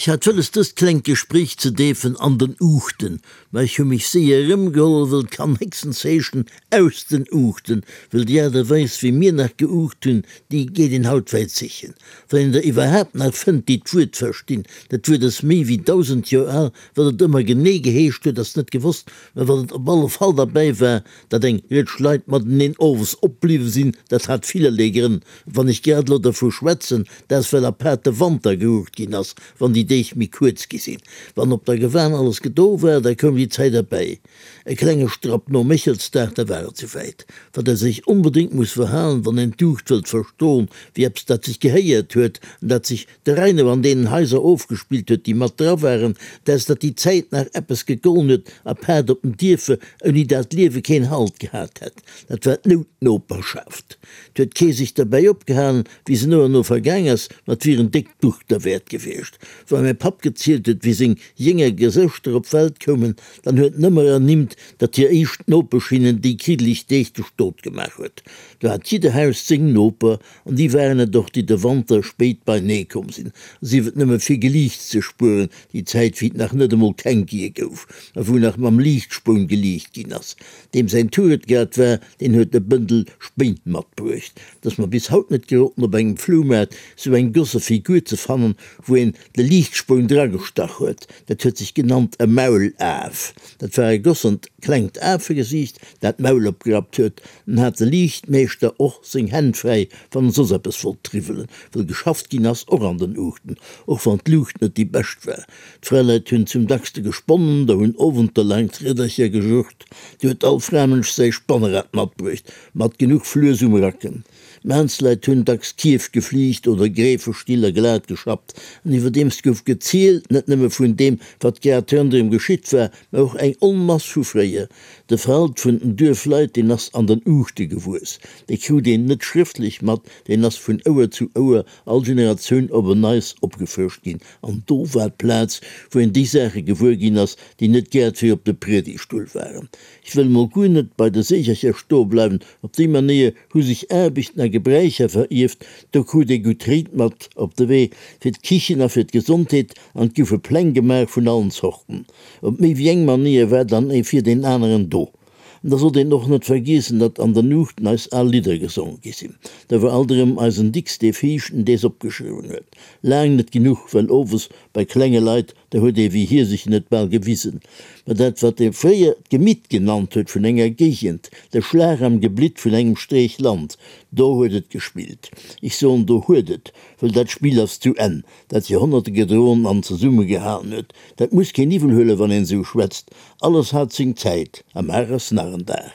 Ech hat wëlles dëst klengt Gespréich ze deefen an den Uuchten, mä ech hu mech séier erëmgeholl, wëll 't kann héchstens heeschen aus den Uuchten, wëll déi Aart a Weis wéi mir nach geuucht hunn, déi geet een haut wäit sichen, wann een der iwwerhaapt nach fënnt, déi d'Wuert verstinn. Dat Wuert ass méi wéi 1000 Joer al, wat et ëmmer genee geheescht huet, ass net gewosst, mä wat et op alle Fall derbäi war, Datt eng Rëtsch Leit mateneen owes opbliwwe sinn, dat hat villerlee Grënn. Wann ech grad elo dervu schwätzen, dat ass well apaart de Wanter gerucht ginn ass, wann déi Deeg méi kuerz gi sinn. Wann op der Gewan alles gedo war, da koum déi Zäit erbäi. E klenge Strapp nom Méchelsdag, da war et souwäit. Wat ee sech onbedéngt muss verhalen, wann een d'Uucht wëllt verstoen, wéi eppes dat sech gehéiert huet an dat sech de Reino an deenen Haiser ofgespillt huet, déi mat dra waren, dat ass, datt déi Zäit nach eppes gegollen huet, apaart op den Dierfer, ouni dat d'Liewe keen Halt gehat hätt. Dat war d'Noutnoperschaft. 't huet kee sech derbäi opgehalen, wéi se no an no vergaang ass, ma 't wier en déckt Buch derwäert gewiescht. Wa mäi Papp gezielt huet, wéi seng jénger Gesëschter op d'Welt koumen, dann huet en ëmmer ernimmt, datt hir éischt Nopesch hinnen déi kriddeleg Deeg de Stot gemaach huet. Do hat jidder Haus seng Noper, An déi waren et och, déi de Wanter spéit beinee komm sinn, sief et nëmme fir Geliichts ze spueren, déi Zäit, wéi et nach net emol Känkie gouf a wou nach mam Liichtspoun geliicht ginn ass. Deem säin Tour et grad war, deen huet e Bëndel Spéin matbruecht. Et ass mer bis haut net geroden, op engem Floumaart sou eng gosse Figur ze fannen, wou een de Liichtspoun dragestach huet. Dat huet sech genannt e Maulaf. Dat war e gossent klengt Afegesiicht, dat d'Maul opgerappt huet. En hat de Liichtmeeschter och seng Hänn fräi, wann en soss eppes wollt triwwelen, wëll geschafft ginn ass och an den Uuchten, och wann d'Luucht net déi bescht war. D'Fraleit hunn zum dackste gesponnen, der hunn owentelaang d'Riedercher gejucht. Du huet all Framënsch säi Spannerad matbruecht, mat genuch Fluess um Racken. D'Maansleit hunn dacks Kierf geflicht oder Gräfestiller glat geschappt. An iwwerdeems gouf gezielt, net nëmme vun deem, wat grad ronderëm geschitt war, mä och eng Onmass vu fréier. De Verhalt vun den Duerfleit, deen ass an den Uuchte gewuess. Dee krut een net schrëftlech mat, deen ass vun Ouer zu Ouer, all Generatioun op en Neits opgefrëscht ginn. An do war d'Plaz, wou een déi Saache gewuer ginn ass, déi net grad fir op de Priedigtstull waren. Ech wëll mol guer net bei de Seechercher stoe bleiwen. Op déi Manéier hu sech Aarbechten a Gebräicher verierft. Do krut ee gutt Ried mat op de Wee fir d'Kichen a fir d'Gesondheet an et goufe Pläng gemaach vun allen Zorten. Op méi wéi eng Manéier war dann ee fir deen aneren do. An da sollt een och net vergiessen, datt an der Nuuchten eis al Lidder gesonge gi sinn. Da war alt erëm eisen Dicks dee Viischten, dees opgeschriwwen huet. Laang net genuch, well owes bei klenge Leit, da huet ee wéi hie sech net bal gewisen. Mä dat, wat ee fréier d'Gemitt genannt huet vun enger Géigend, de Schlag am Geblitt vun engem Streech Land, do huet et gespillt. Ech soen, do huet et, wëll dat Spill ass zu Enn, dat Joerhonnerte gedroen an zesummegehalen huet. Dat muss keen iwwel huelen, wann een esou schwätzt. Alles hat seng Zäit, a mar ass nach en Dag.